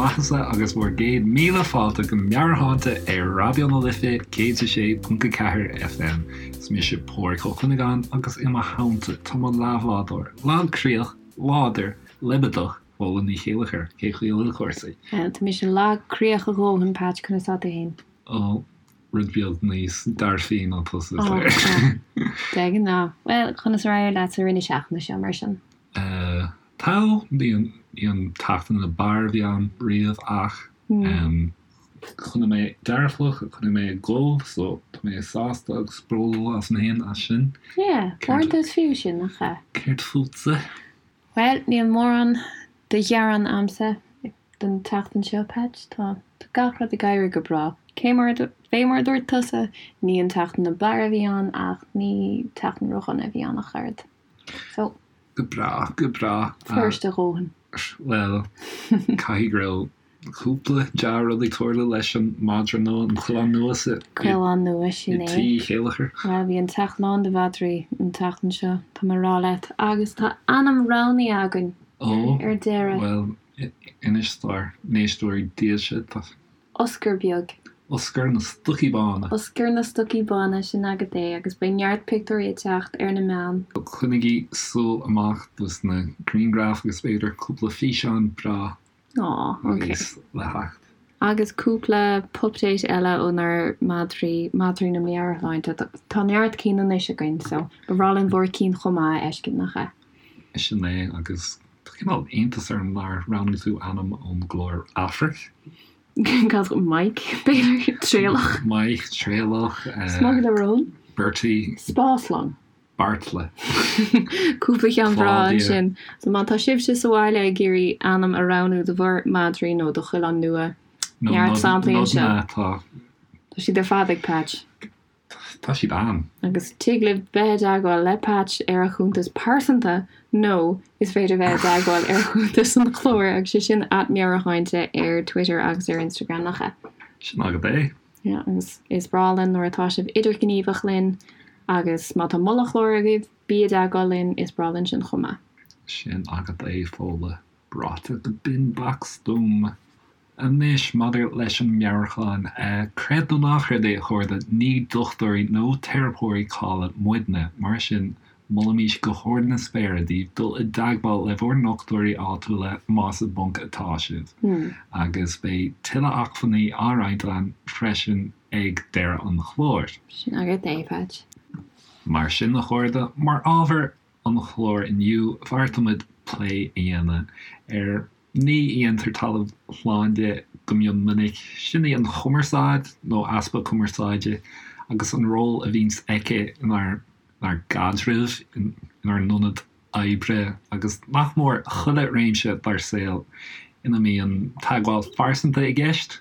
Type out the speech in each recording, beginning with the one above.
maitheasa agus bhur gcéad míle fáilte go Meabhairshláinte ar Raidió na Life 106.4 FM. Is mise Pádraig Ó Cuinneagáin agus i mo theannta tá mo leathbhádóir, lagchroíoch, láidir, leibideach, Fódhla Ní Chéilleachair. Cén chaoi a bhfuil cúrsaí? Bhuel, tá mise lagchroíoch a dhóthain, Patch, conas tá tú fhéin? Ó, rud beag níos dearfaí ná tusa, is léir. De ghnáth. Bhuel, conas ar éirigh leat sa rith na seachtaine seo, mar sin? Tá, ní an tseachtain ab fhearr a bhí ann riamh ach choinnigh mé dearfach, choinnigh mé ag dul so tá mé sásta agus bródúil asam féin as sin. Yeah, uaireanta is fiú sin, nach ea? Céard fútsa? Bhuel, níl mórán de ghearán a'msa don tseachtain seo, Patch. Tá gach rud ag éirí go breá. Cé mar, fé mar a dúirt tusa, ní an tseachtain ab fhearr a bhí ann ach ní tseachtain ródhona a bhí ann ach oiread. So. Go breá, go breá. Fuirist a dhóthain. Bhuel, caithfidh go raibh cúpla dea-rud ag tarlú leis an madra nua, an coileán nua sa. Coileán nua, sin é. Tí Uí Chéilleachair. Bhuel, bhí an teach lán de mhadraí an tseachtain seo, tá mé a rá leat, agus tá ainm roghnaithe againn Ó, ar deireadh. Bhuel, inis dár n-éisteoirí dílse, tá. Oscar beag. Oscar na Stocaí Bána. Oscar na Stocaí Bána, sin agat é, agus beidh neart pictiúirí ag teacht ar na meáin. Coinnigí súil amach dos na grianghraif agus b'fhéidir cúpla físeán breá Aw, ok. níos le theacht. Agus cúpla pupdate eile ónár madraí, madraí na meabhairshláinte. Tá neart cinn anois againn, so ba bhreá linn bhur cinn chomh maith a fheiscint, nach ea? Sin é, agus tá cineál iontas orm nár roghnaigh tú ainm ón gclár Aifric. Cad, Mike, b'fhéidir? Traolach. Mike, Traolach. Smugairle Róin. Bertie. Spáslong. Beartla. Cúpla ceann breá ansin. So má tá sibhse sa bhaile ag iarraidh ainm a roghnú do bhur madraí nó do choileán nua, neart samplaí anseo. Nodanna atá. Tá siad ar fad ag Patch. Tá siad ann. Agus tig libh bheith i dteagmháil le Patch ar a chuntas pearsanta nó is féidir bheith i dteagmháil ar chuntas an chláir agus sé sin @meabhairshláinte ar Twitter agus ar Instagram, nach ea? Sin agat é. Yeah, agus is breá linn nuair atá sibh idirghníomhach linn agus má tá moladh chláir agaibh, bí i dteagmháil linn, is breá linn sin chomh maith. Sin agat é, Fódhla. Ráite go binn beacht stuama. Anois, maidir leis an meabhairshláinte, creid nó ná creid é, a chairde, ní dochtúirí nó teiripeoirí cáilithe muidne. Mar sin, molaimís go hard na spéire daoibh dul i dteagmháil le bhur ndochtúirí áitiúla más i bponc atá sibh. Agus beidh tuilleadh acmhainní á roinnt againn freisin ag deireadh an chláir. Sin agat é, Patch. Mar sin, a chairde, mar ábhar an chláir inniu, bheartaigh muid plé a dhéanamh ar ní a dhéantar talamh slán de go mion minic, sin í an chumarsáid, nó easpa cumarsáide, agus an ról a bhíonns aici inár gcaidrimh, inár n-ionad oibre agus nach mór chuile réimse dár saol ina mbíonn teagmháil phearsanta i gceist.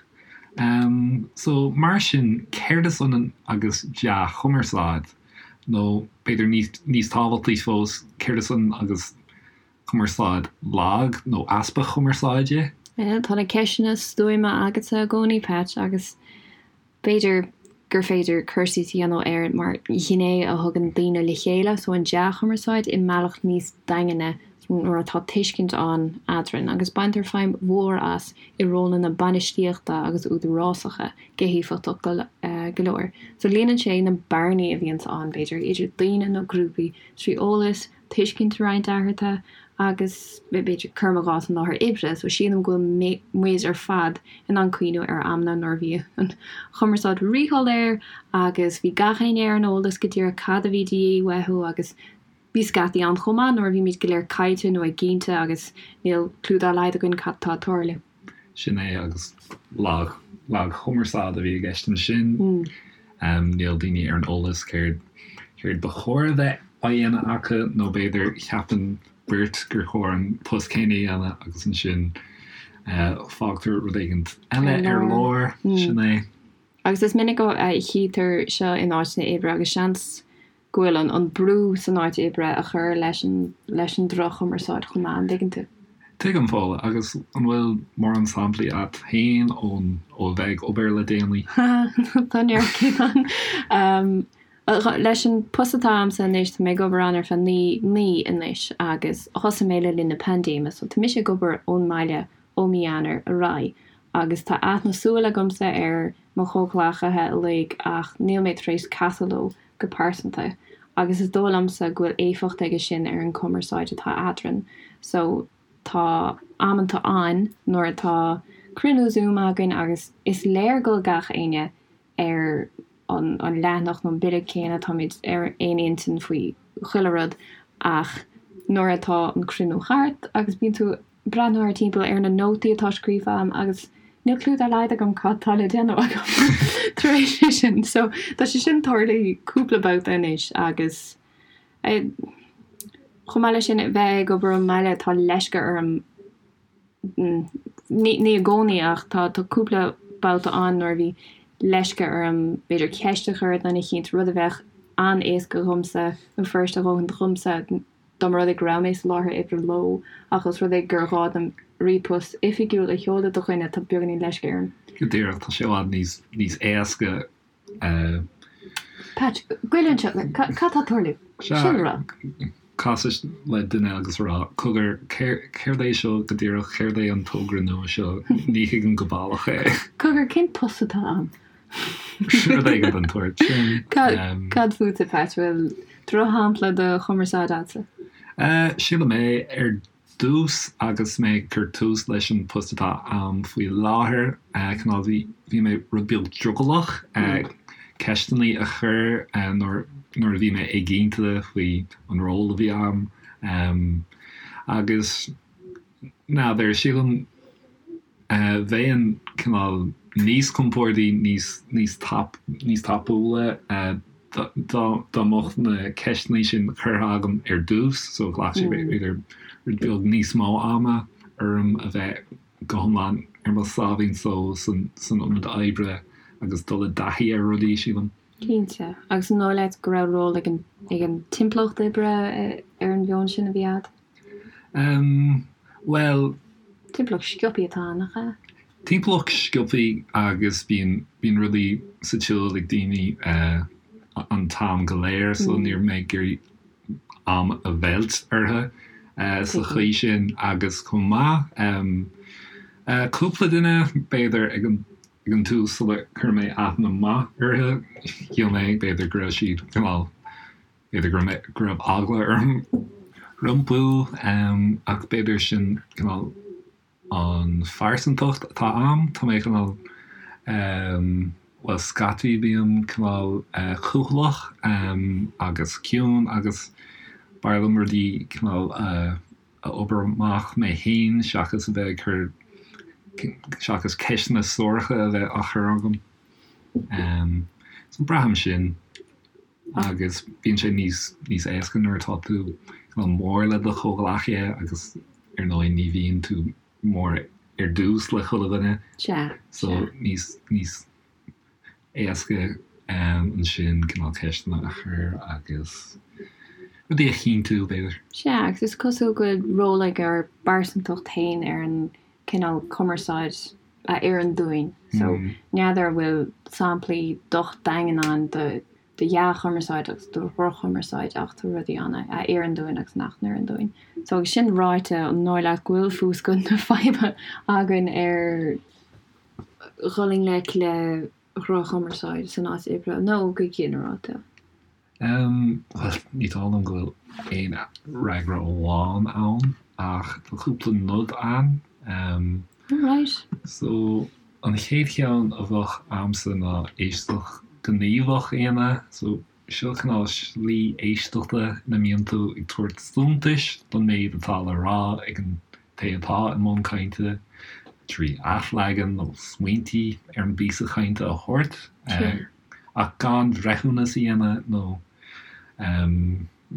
So, mar sin, céard is ionann agus dea-chumarsáid? Nó b'fhéidir níos tábhachtaí fós, céard is ionann agus cumarsáid lag nó easpa cumarsáide? Tá na ceisteanna stuama agatsa i gcónaí, Patch, agus b'fhéidir gur féidir cur síos a dhéanamh air mar ghné a thugann daoine le chéile, so an dea-chumarsáid i mbealach níos daingne nuair atá tuiscint ann eadrainn, agus baintear feidhm mhór as i rólanna bainistíochta agus údarásacha go héifeachtach go leor. So líonann sé na bearnaí a bhíonns ann, b'fhéidir, idir daoine nó grúpaí trí eolas, tuiscint a roinnt eatarthu agus, b'fhéidir, cuirim i gcás an láthair oibre, so sílim go bhfuil muid ar fad in ann cuimhniú ar amanna nuair a bhí an chumarsáid ríshoiléir agus bhí gach éinne ar an eolas go díreach cad a bhí de dhíth uathu agus bhí scaití ann chomh maith nuair a bhímid go léir caillte nó éiginnte agus níl cliú dá laghad againn cad tá ag tarlú. Sin é agus lag, lagchumarsáid a bhí i gceist ansin. Níl daoine ar an eolas céard, céard ba chóir a bheith á dhéanamh acu nó b'fhéidir ceapann beirt gur chóir an post céanna a dhéanamh agus ansin fágtar rud éigin eile ar lár. Sin é. Agus is minic a chítear seo in áiteanna oibre agus seans go bhfuil an an brú san áit oibre a chur leis an leis an droch-chumarsáid chomh maith, an dtuigeann tú? Tuigim, Fódhla, agus an bhfuil mórán samplaí a't féin ón ó a bheith ag obair le déanaí? Tá neart cinn ann. Leis an post atá a'msa anois, tá mé ag obair ann ar feadh 9 mí anois agus thosaigh mé le linn na paindéime so tá mise ag obair ón mbaile. ó mí Eanáir ar aghaidh agus tá aithne súl agamsa ar mo chomhghleacaithe uilig ach níl mé tar éis casadh leo go pearsanta agus is dóigh liomsa go bhfuil éifeacht aige sin ar an chumarsáid atá eadrainn so tá amanta ann nuair atá cruinniú Zoom againn agus is léir go bhfuil gach éinne ar an leathanach nó an bille céanna, táimid ar aon intinn faoi chuile rud ach nuair atá an cruinniú thart agus bíonn tú ag breathnú thart timpeall ar na nótaí atá scríofa agam agus níl clue dá laghad agam cad tá le déanamh agam tar éis é sin. So tá sé sin tarlaithe cúpla babhta anois agus chomh maith leis sin bheith ag obair ón mbaile tá leisce orm Ní i gcónaí ach tá cúpla babhta ann nuair a bhí leisce orm b'fhéidir ceist a chur ar dhuine eicínt, rud a bheadh an-éasca dhomsa nó fuiriste a dhóthain dhomsa dá mba rud é go raibh mé sa láthair oibre leo ach os rud é gur ghá dom ríomhphost oifigiúil a sheoladh do dhuine tá beagáinín leisce orm. Go díreach, tá sé i bhfad níos éasca Patch, goil anseo, cad tá ag tarlú? Sin a rá. Casadh le duine agus a rá, cogar, céard é seo go díreach, céard é an togra nua seo, ní thuigim go baileach é. Cogar, cén post atá ann? Rud éigin den tsórt sin. Cad fútsa, Patch, bhfuil drochshampla de chumarsáid agatsa? Sílim é, ar dtús agus mé ag cur tús leis an post atá a'm faoi láthair, cineál bhí bhí mé rud beag drogallach ceisteanna a chur nuair nuair a bhí mé éiginnte faoi an ról a bhí a'm agus n'fheadar, sílim Bheinn cineál níos compordaí, níos, níos tap, níos tapúla dá, dá mbeadh na ceisteanna sin curtha agam ar dtús, so ghlac sé b'fhéidir rud beag níos mó ama orm a bheith go hiomlán ar mo sáimhín só san, san ionad oibre agus dul i dtaithí ar rudaí, sílim. Cinnte. Agus an dóigh leat go raibh ról ag an, ag an timpeallacht oibre ar an mheon sin a bhí agat? Em, bhuel. Timpeallacht sciobtha atá ann, nach ea? Timpeallacht sciobtha agus bíonn, bíonn rudaí sa tsiúl ag daoine eh an t-am go léir so ní raibh mé ag iarraidh am a mheilt orthu eh sa chaoi sin agus chomh maith em eh cúpla duine b'fhéidir ag an ag an tús sular chuir mé aithne maith orthu shíl mé b'fhéidir go raibh siad cineál B'fhéidir go raibh go raibh eagla orm rompu ach b'fhéidir sin cineál an phearsantacht atá a'm. Tá mé cineál bhuel scaití bím cineál cúthaileach agus ciúin agus b'fhearr liom rudaí cineál a a obair amach mé féin seachas a bheith ag cur seachas ceisteanna suaracha a bheith á chur agam. So braithim sin. Agus bíonn sé níos níos éasca nuair atá tú cineál mór le do chomhghleacaithe agus ar ndóigh ní bhíonn tú mór ar dtús le chuile dhuine. Sea, So níos níos éasca ansin cineál ceisteanna a chur agus rudaí a chinntiú, b'fhéidir. Sea, agus is cosúil go bhfuil ról ag ár bpearsantacht féin ar an cineál cumarsáid a oireann dúinn. So, n'fheadar an bhfuil samplaí docht daingean ann de de dhea-chumarsáid agus de dhroch-chumarsáid ach tá rudaí ann a oireann dúinn agus nach n-oireann dúinn. So, agus sin ráite, an dóigh leat go bhfuil fuascailt na faidhbe againn ar dhul i ngleic le dhroch-chumarsáid san áit oibre nó go ginearálta? Bhuel, ní dóigh liom go bhfuil aon fhreagra amháin ann, ach tá cúpla nod ann. Alright. So, an chéad cheann a bheadh a'msa ná éisteacht ghníomhach a dhéanamh. So, seo cineál slí éisteachta ina mbíonn tú ag tabhairt suntais don méid atá le rá ag an té atá i mbun cainte, trí athleagan nó smaointí ar an bpíosa cainte a thabhairt. Ach gan breithiúnas a dhéanamh nó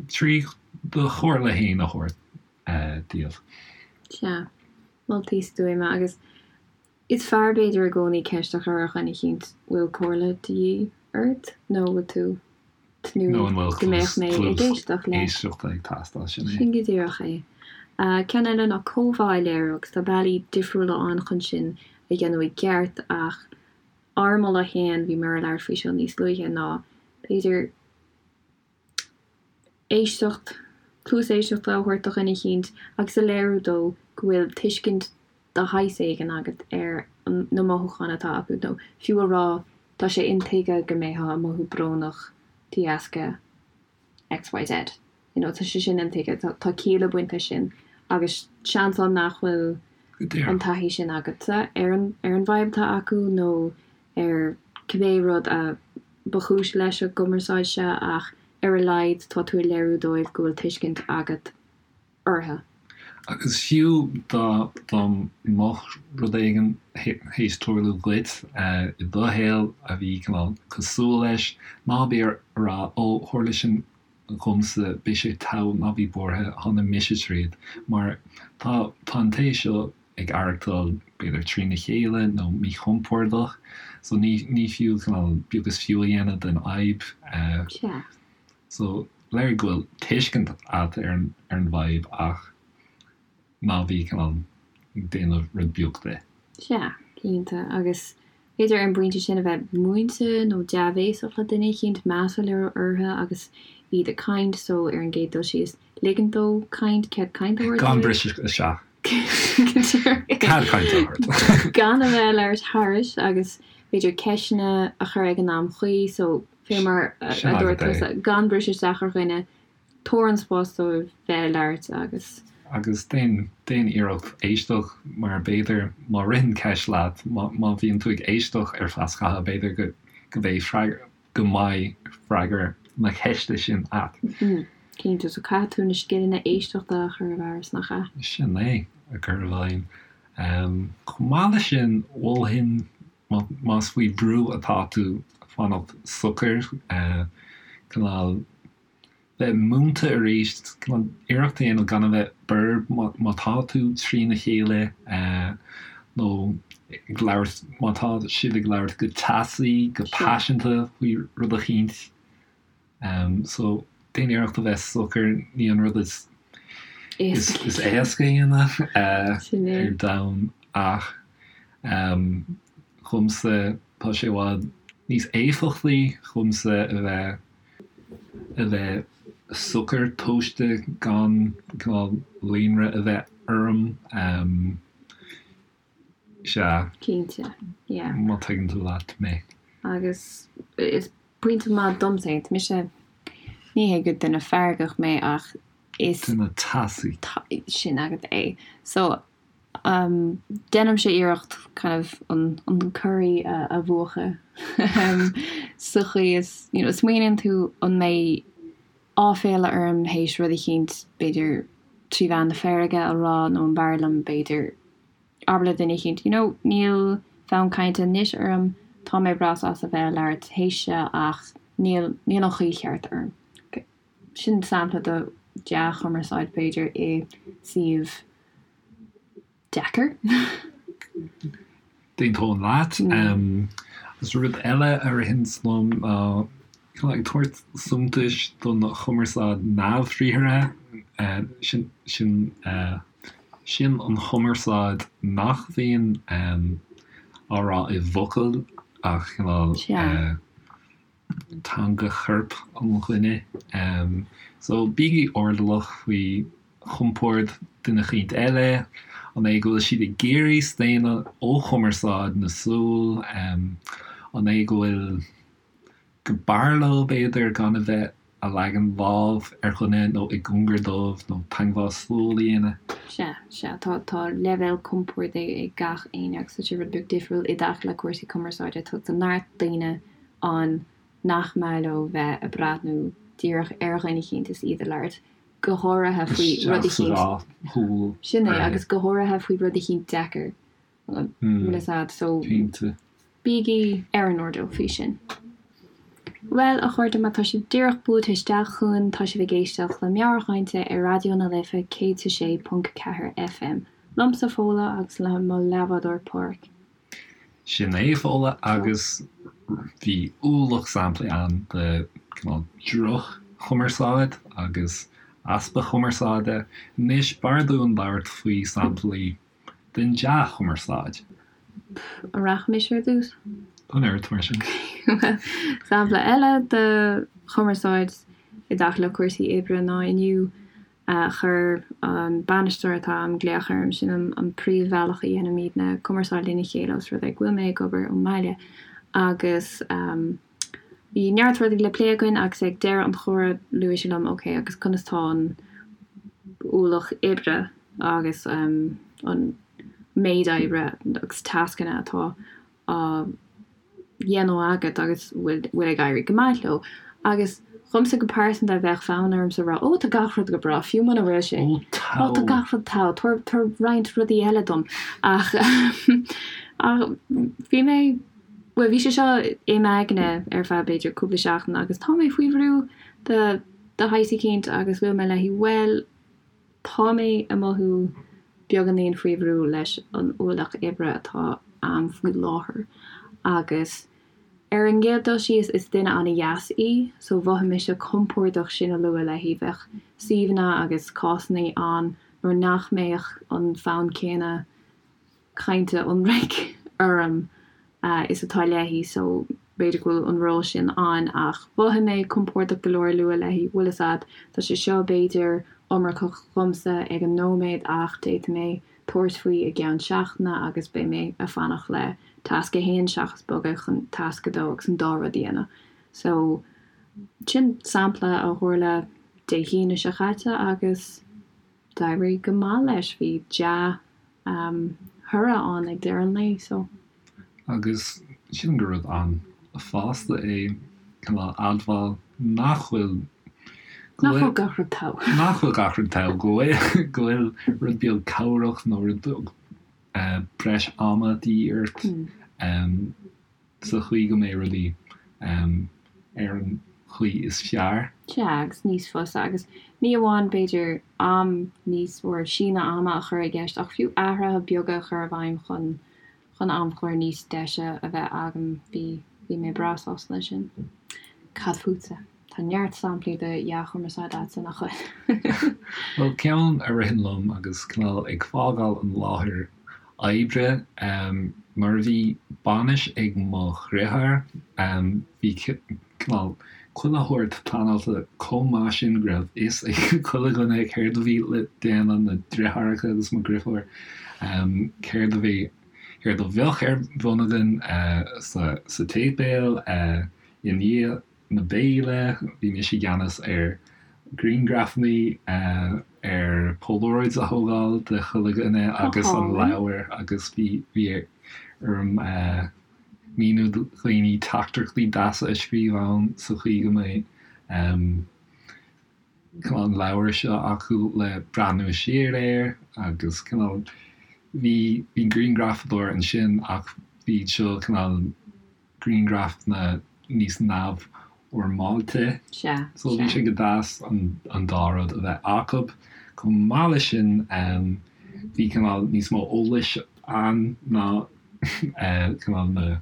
trí do chomhairle féin a thabhairt díobh. Sea, moltaí stuama agus is fearr b'fhéidir i gcónaí ceist a chur ar dhuine eicínt bhfuil comhairle de dhíth ort nó bhfuil tú tnúth go mbeadh mé ag éisteacht leat. Éisteachta ag teastáil, sin é. Sin go díreach é. Ceann eile ná comhbhá a léiriú agus tá bealaí difriúla ann chun sin a dhéanamh i gceart ach Ár moladh féin, bhíomar ag labhairt faoi seo níos luaithe, ná b'fhéidir éisteacht, cluas éisteachta a thabhairt do dhuine eicínt agus a léiriú dó go bhfuil tuiscint. de shaghas éigin agat ar na mothúcháin atá acu nó fiú a rá tá sé intuigthe go mbeifeá ag mothú brónach de dheasca XYZ. You know, tá sé sin intuigthe, tá, tá ciall ag baint leis sin agus seans ann nach bhfuil an taithí sin agatsa ar an, ar an bhfadhb atá acu nó ar cibé rud a ba chúis leis an gcumarsáid seo ach ar a laghad tá tú ag léiriú dóibh go bhfuil tuiscint agat orthu. Agus fiú dá dá mbeadh rud éigin théis tarlú dhuit i do shaol a bhí cineál cosúil leis, ná bí ag rá 'Ó, tharla sin dhomsa, beidh sé togha, ná bí buartha, tháinig mise tríd', mar tá tá an té seo ag aireachtáil b'fhéidir trína chéile nó míchompordach so ní ní fiú cineál beag is fiú a dhéanamh den fhadhb. Sea. So, léirigh go bhfuil tuiscint agat ar an ar an bhfadhb ach ná bí cineál ag déanamh rud beag de. Sea, cinnte. Agus b'fhéidir ar an bpointe sin a bheith múinte nó dea-bhéasach le duine eicínt, meas a léiriú orthu agus iad ag caint, so ar an gcéad dul síos, ligint dóibh caint, cead cainte a thabhairt Gan dóibh. briseadh isteach. Cead cainte a thabhairt. Gan a bheith ag labhairt thairis agus b'fhéidir ceisteanna a chur ag an am chuí, so fé mar a dúirt tusa, gan briseadh isteach ar dhuine, tabhair an spás dóibh bheith ag labhairt agus. Agus déan, déan iarracht éisteacht mar b'fhéidir má ritheann ceist leat, má, má bhíonn tú ag éisteacht ar feadh scaithimh b'fhéidir go, go mbeidh freagra, go mbeidh freagra na ceiste sin a't. Cinnte, so caithfidh tú na scileanna éisteachta a chur i bhfearas, nach ea? Sin é, a chur i bhfeidhm. Chomh maith leis sin, mholfainn Más faoi bhrú atá tú, fanacht socair, cineál bheith múinte arís, cineál iarracht a dhéanamh gan a bheith borb má tá tú trína chéile nó ag labhairt, má tá sibh ag labhairt go teasaí, go paiseanta faoi rud eicínt. So, déan iarracht a bheith socair, ní an rud is is éasca a dhéanamh ar domhan ach dhomsa tá sé i bhfad níos éifeachtaí dhomsa a bheith a bheith socair tomhaiste gan cineál líonrith a bheith orm. Sea. Cinnte, yeah. Má tuigeann tú leat mé. Agus is pointe maith domsa é. Tá mise, ní hé gur duine feargach mé ach is. Duine teasaí. Sin agat é. So, um, déanaimse iarracht kind of an, an corraí a, a mhúchadh sa chaoi is, you know, smaoiníonn tú an mbeidh áiféala orm théis rud eicínt, b'fhéidir trí mheán na feirge a rá nó an b'fhearr liom b'fhéidir abair le duine eicínt, you know, níl fonn cainte anois orm, tá mé breá sásta bheith ag labhairt théis seo ach níl, níl an chaoi cheart orm. Sin sampla de dea-chumarsáid b'fhéidir i suíomh deacair. D'aontóinn leat. Agus rud eile a ritheann liom ná cineál ag tabhairt suntais don chumarsáid neamhbhriathartha, sin, sin, sin an chumarsáid nach mbíonn á rá i bhfocail ach cineál teanga choirp an dhuine. So bígí airdeallach faoi chompord duine eicínt eile, an é go bhfuil siad ag iarraidh staonadh ó chumarsáid na súl, an é go bhfuil, go mb'fhearr leo b'fhéidir gan a bheith a' leagan lámh ar dhuine nó i gcóngar dóibh nó teagmháil súl a dhéanamh. Sea, sea, tá, tá leibhéal compoird ag gach éinne agus tá sé rud beag difriúil i dtaca le cúrsaí cumarsáide. Tá, tá neart daoine ann nach maith leo bheith ag breathnú díreach ar dhuine eicínt is iad ag labhairt, go háirithe faoi rud eicínt, sin é, agus go háirithe faoi rud eicínt deacair, bhfuil fhios a'd, so bígí ar an airdeall faoi sin. Bhuel, a chairde, má tá sibh díreach buailte isteach chugainn, tá sibh ag éisteacht le Meabhairchainte ar Raidió na Life 106.4 FM, liomsa Fódhla agus le mo leathbhádóir Páraic. Sin é, Fódhla, agus bhí ualach samplaí ann de cineál droch-chumarsáid agus easpa cumarsáide. Anois, b'fhearr dúinn labhairt faoi samplaí den dea-chumarsáid. An rachaidh mise ar dtús? An oiread mar sin. Bhuel, sampla eile de chumarsáid i dtaca le cúrsaí oibre ná inniu. Chuir an bainisteoir atá a'm glaoch orm, sin an príomhbhealach a dhéanaimidne cumarsáid lena chéile os rud é go bhfuil mé ag obair ón mbaile. Agus bhí neart rudaí le plé againn agus ag deireadh an chomhrá luaigh sé liom ok agus conas tá an ualach oibre agus an méid oibre agus tascanna atá á dhéanamh agat agus bhfuil ag éirí go maith leo. Agus dhomsa go pearsanta bheadh fonn ormsa rá 'Ó tá gach rud go breá' fiú muna bhfuil sé. Ó tá. Ó tá gach rud togha, tabhair tabhair roinnt rudaí eile dom. Ach ach bhí mé, bhuel bhí sé seo i m'aigne ar feadh b'fhéidir cúpla seachtain agus tá mé faoi bhrú de de shaghas eicínt agus luaigh mé léi bhuel Tá mé ag mothú beagáinín faoi bhrú leis an ualach oibre atá a'm faoi láthair agus ar an gcéad dul síos is duine an-dheas í so mhothaigh mise compordach sin a lua léi. Bheadh suíomhanna agus cásanna ann nuair nach mbeadh an fonn céanna cainte ionraic orm is atá léi so b'fhéidir go bhfuil an ról sin ann ach mhothaigh mé compordach go leor lua léi, bhfuil fhios a'd, tá sé seo b'fhéidir iomarcach dhomsa ag an nóiméad ach d'fhéadfadh mé tabhairt faoi i gceann seachtaine agus beidh mé a' fanacht le tasc a haon seachas bogadh chun tasc a dó agus an dá rud a dhéanamh. So sin sampla a tharla Dé hAoine seo chaite agus d'éirigh go maith leis, bhí dea thoradh ann ag deireadh an lae, so. Agus sílim gur rud an-fhásta é cineál admháil nach bhfuil, go Nach bhfuil gach rud togha. Nach bhfuil gach rud togha, go bhfuil, go bhfuil rud beag cabhrach nó rud beag breis ama de dhíth ort. sa chaoi go mbeidh rudaí ar an chaoi is fearr. Sea, agus níos fusa, agus ní amháin, b'fhéidir, am níos, or síneadh ama a chur i gceist, ach fiú athruithe beaga a chur i bhfeidhm chun, chun amchlár níos deise a bheith agam. Bhí, bhí mé breá sásta leis sin. Cad fútsa? Tá neart samplaí de dhea-chumarsáid a'dsa, nach bhfuil? Bhuel, ceann a ritheann liom agus cineál ag fágáil an láthair oibre, nuair a bhí bainis ag mo dhriotháir, bhí cineál chuile shórt pleanáilte chomh maith sin go raibh fhios ag chuile dhuine céard a bhí le déanamh, na driotháireacha agus mo dhriofúr, céard a bhí, céard a bheadh ar bun againn sa tséipéal i ndiaidh na béile, bhí mise i gceannas ar ghrianghrafanna, ar Polaroids a thógáil de chuile dhuine agus an leabhar agus bhí bhí orm míniú do dhaoine teachtaireachtaí deasa a scríobh ann sa chaoi go mbeidh cineál an leabhar seo acu le breathnú siar air agus cineál bhí bhí grianghrafadóir ansin ach bhí seo cineál grianghrafanna níos neamhfhoirmeáilte. Sea, So bhí sea. sé go deas an dá rud a bheith acu. Chomh maith leis sin, bhí cineál níos mó eolais ann ná cineál na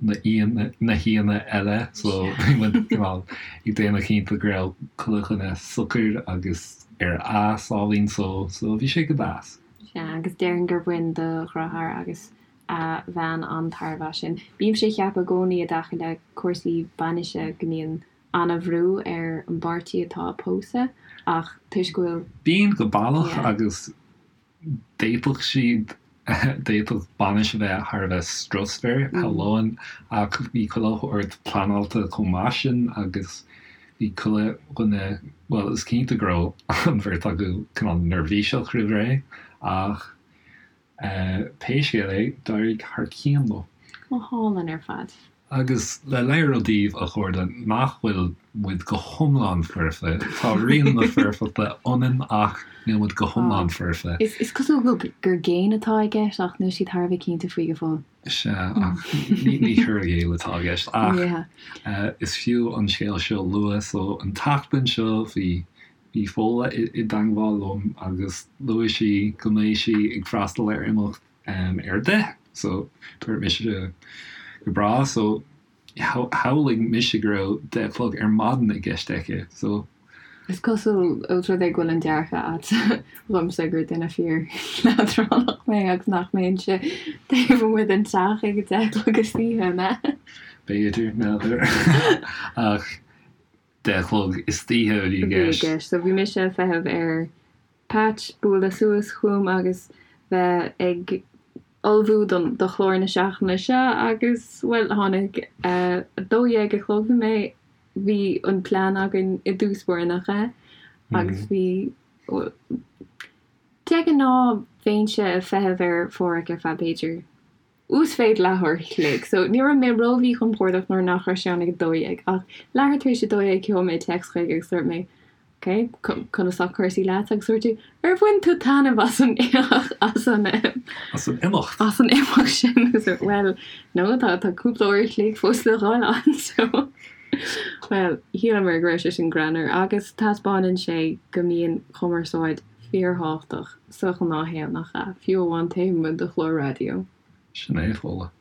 na aíonna na haíonna eile so bhí muid cineál ag déanamh cinnte go raibh chuile dhuine socair agus ar a sáimhín só so bhí sé go deas. Sea, agus déarfainn gur bhain do dheartháir agus a bhean an-tairbhe as sin. Bímse ag ceapadh i gcónaí i dtaca le cúrsaí bainise go mbíonn an-bhrú ar an bpáirtí atá ag pósadh ach toisc go bhfuil. Bíonn go baileach agus d'fhéadfadh siad, d'fhéadfadh bainis a bheith thar a bheith strusmhar, shamhlóinn, ach bhí chuile shórt pleanáilte chomh maith sin agus bhí chuile dhuine, bhuel is cinnte go raibh an bheirt acu cineál neirbhíseach roimh ré ach Pé scéal é, d'éirigh thar cionn leo. Go hálainn ar fad. Agus le léiriú daoibh, a chairde, nach bhfuil muid go hiomlán foirfe, tá rian na foirfeachta ionainn ach níl muid go hiomlán foirfe. Is cosúil go gur géin atá i gceist ach níl siad thar a bheith cinnte faoi go fóill. Sea, ach ní cur i gcéill atá i gceist. Ach is fiú an scéal seo a lua. So, an tseachtain seo bhí Bhí Fódhla i dteangmháil liom agus luaigh sí go mbeidh sí ag freastal ar imeacht ar a 10 so dúirt mise go breá so shamhlaigh mise go raibh 10 a chlog ar maidin i gceist aici so. Is cosúil ós rud é go bhfuil an dearcadh agat dhomsa gur duine fíor leadránach mé agus nach mbeinnse taobh amuigh den teach ag a 10 a chlog istoíche, an ea? B'fhéidir, n'fheadar ach. 10 a chlog istoíche a bhí i gceist. So bhí mise ag feitheamh ar Patch bualadh suas chugam agus bheith ag ullmhú don do chlár na seachtaine seo agus, bhuel, tháinig 12 a chlog, bhí mé, bhí an plean againn i dtús báire, nach ea? Agus bhí, de ghnáth bheinnse ag feitheamh ar Pháraic ar feadh b'fhéidir uasmhéid leathuair a chloig. So ní raibh mé ró-mhíchompordach nuair nach raibh sé ann ag 12 ach leathuair tar éis 12 sheol mé téacs chuige agus dúirt mé Ok, conas tá cúrsaí leat? Agus dúirt tú Ar bhain tú taitneamh as an as an As an imeacht. As an imeacht sin agus dúirt Bhuel, no, tá tá cúpla uair a chloig fós le dhul ann so Bhuel, shíleamar go raibh sé sin greannmhar agus taispeánann sé go mbíonn cumarsáid fíorthábhachtach sa ghnáthshaol, nach ea? Fiú amháin taobh amuigh de chlár raidió. Sin é, Fódhla.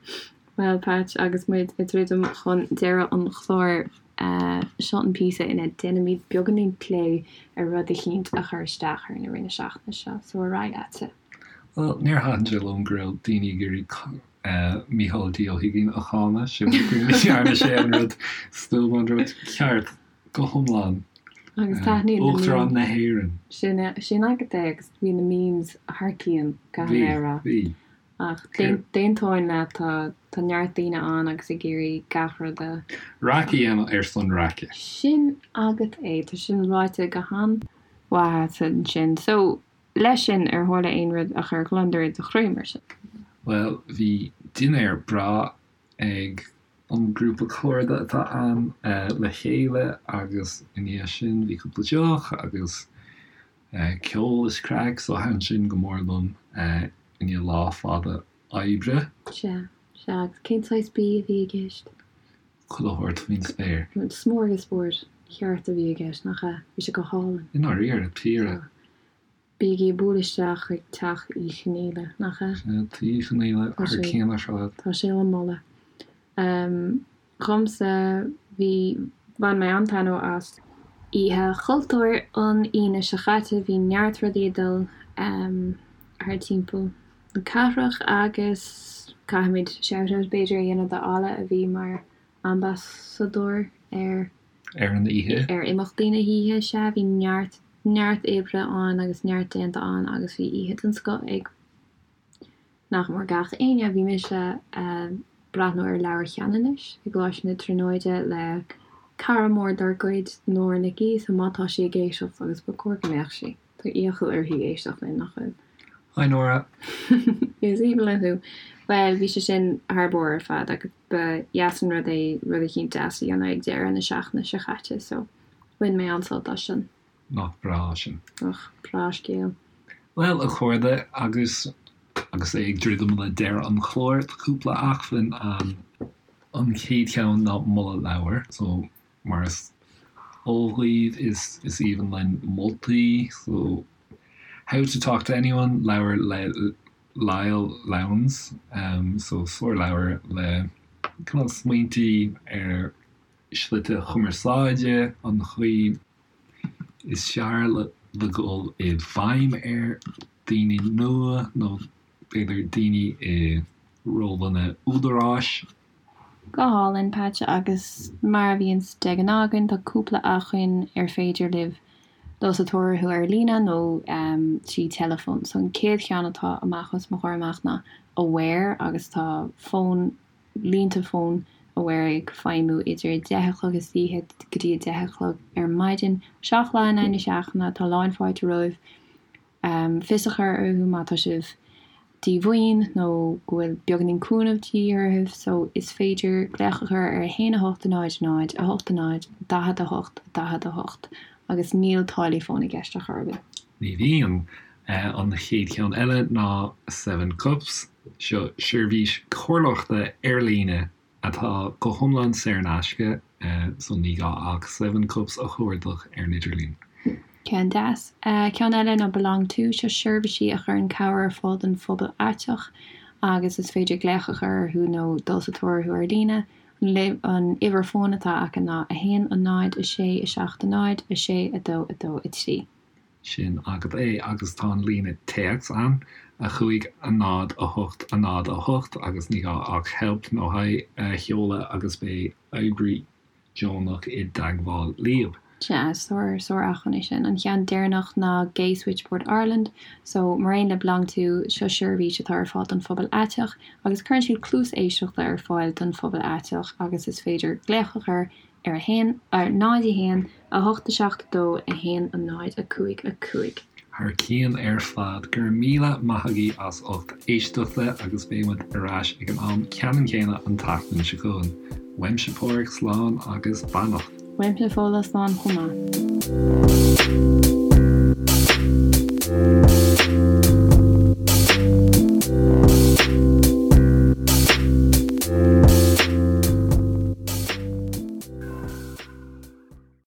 Bhuel, Patch, agus muid ag druidim chun deireadh an chláir, seo an píosa ina ndéanaimid beagáinín plé ar rud eicínt a chuir isteach orainn i rith na seachtaine seo, so ar aghaidh leatsa. Bhuel, níor thaitin sé liom go raibh daoine ag iarraidh Mícheál D. Ó hUiginn a cháineadh, sin go ndearna sé an rud stuama, an rud ceart. Go hiomlán. Agus taitníonn na memes. Uachtarán na hÉireann. Sin sin agat é agus bhí na memes thar cionn, caithfidh mé a rá. Bhí, bhí. Ach d'aontóinn leat, tá tá neart daoine ann agus ag iarraidh gach rud a. Raic a dhéanamh ar son raice. Sin agat é, tá sin ráite go han-mhaith agat ansin. So, leis sin, ar tharla aon rud a chuir gliondar i do chroí, mar sin? Bhuel, bhí dinnéar breá ag an grúpa cairde atá ann le chéile agus i ndiaidh sin bhí cúpla deoch agus ceol is craic so thaitin sin go mór liom i ndiaidh lá fada oibre. Sea, sea, agus cén saghas bídh a bhí i gceist? Chuile shórt faoin spéir. Smorgasbord ceart a bhí i gceist, nach ea? Bhí sé go hálainn. I ndáiríre, píre. Bígí ag bualadh isteach chuig teach Uí Chonghaile, nach ea? Sea, Tigh Uí Chonghaile, thar cionn ar fad. Tá sé á mholadh. Dhomsa, bhí, bhain mé an-taitneamh as. Oíche Chultúir an Aoine seo chaite, bhí neart rudaí ag dul thar timpeall na cathrach agus caithfimid shout-out b'fhéidir a dhéanamh do Alla a bhí mar ambasadóir ar. Ar an oíche. Ar imeachtaí na hoíche, sea, bhí neart, neart oibre ann agus neart déanta ann agus bhí oíche den scoth ag nach mór gach éinne. Bhí mise ag breathnú ar Leabhar Cheanannais i gColáiste na Tríonóide le cara mór dár gcuid, Nóra Nic Aoidh, so má tá sí ag éisteacht, agus ba chóir go mbeadh sí, tá iachall uirthi éisteacht linn, nach bhfuil? Hi Nóra! Is aoibhinn liom thú. Bhuel, bhí sé sin thar barr ar fad agus ba dheas an rud é rud eicínt deas a dhéanamh ag deireadh na seachtaine seo chaite so bhain mé an-sult as sin. Nach breá sin. Nach breá scéal. Bhuel, a chairde, agus agus é ag druidim le deireadh an chláir, tá cúpla acmhainn ann. An chéad cheann ná moladh leabhair. So, mar is eol dhaoibh, is is aoibhinn linn moltaí. So, How to Talk to Anyone, leabhar le Lyle Lowndes. So, sárleabhar le cineál smaointí ar shlite cumarsáide, an chaoi is fearr le le dhul i bhfeidhm ar daoine nua nó b'fhéidir daoine i rólanna údaráis. Go hálainn, Patch, agus mar a bhíonns de ghnáth againn, tá cúpla acmhainn ar féidir libh dul sa tóir orthu ar líne nó trí teileafón. So an chéad cheann atá amach os mo chomhair amach ná Aware agus tá fón, línte fóin Aware ag feidhmiú idir 10 a chlog istoíche go dtí 10 a chlog ar maidin, 7 lá in aghaidh na seachtaine, tá lán fáilte romhaibh. Fios a chur orthu má tá sibh díomhaoin nó go bhfuil beagáinín cúnamh de dhíth oraibh so is féidir glaoch a chur ar 1 8 0 0 8 0 48 48 agus níl táillí fóin i gceist ar chor ar bith. Ní bhíonn. An chéad cheann eile ná Seven Cups. Seo seirbhís comhairleoireachta ar líne atá go hiomlán saor in aisce, so ní gá ach Seven Cups a chuardach ar an idirlíon. Ceann deas. Ceann eile ná Belong To, seo seirbhísí a chuireann cabhair ar fáil don phobal aiteach agus is féidir glaoch a chur orthu nó dul sa tóir orthu ar líne. An uimhir fóin atá acu ná 1 0 6 7 0 6 2 2 3. Sin agat é, agus tá an líne téacs ann, 5 0 8 0 8, agus ní gá ach help nó hi a sheoladh agus beidh oibrí. deonach i dteagmháil líob. Sea, sár, sár acmhainn é sin. An cheann deireanach ná Gay Switchboard Ireland. So, mar aon le BeLonG To, seo seirbhís atá ar fáil don phobal aiteach agus cuireann siad cluas éisteachta ar fáil don phobal aiteach agus is féidir glaoch a chur ar 1, 0, 1, 8 7 2 1 0 5 5. Thar cionn ar fad. Go raibh míle maith agaibh as ucht éisteachta agus beidh muid ar ais ag an am ceannann céanna an tseachtain seo chugainn. Uaimse Páraic, slán agus beannacht. Uaimse Fódhla, slán chomh maith.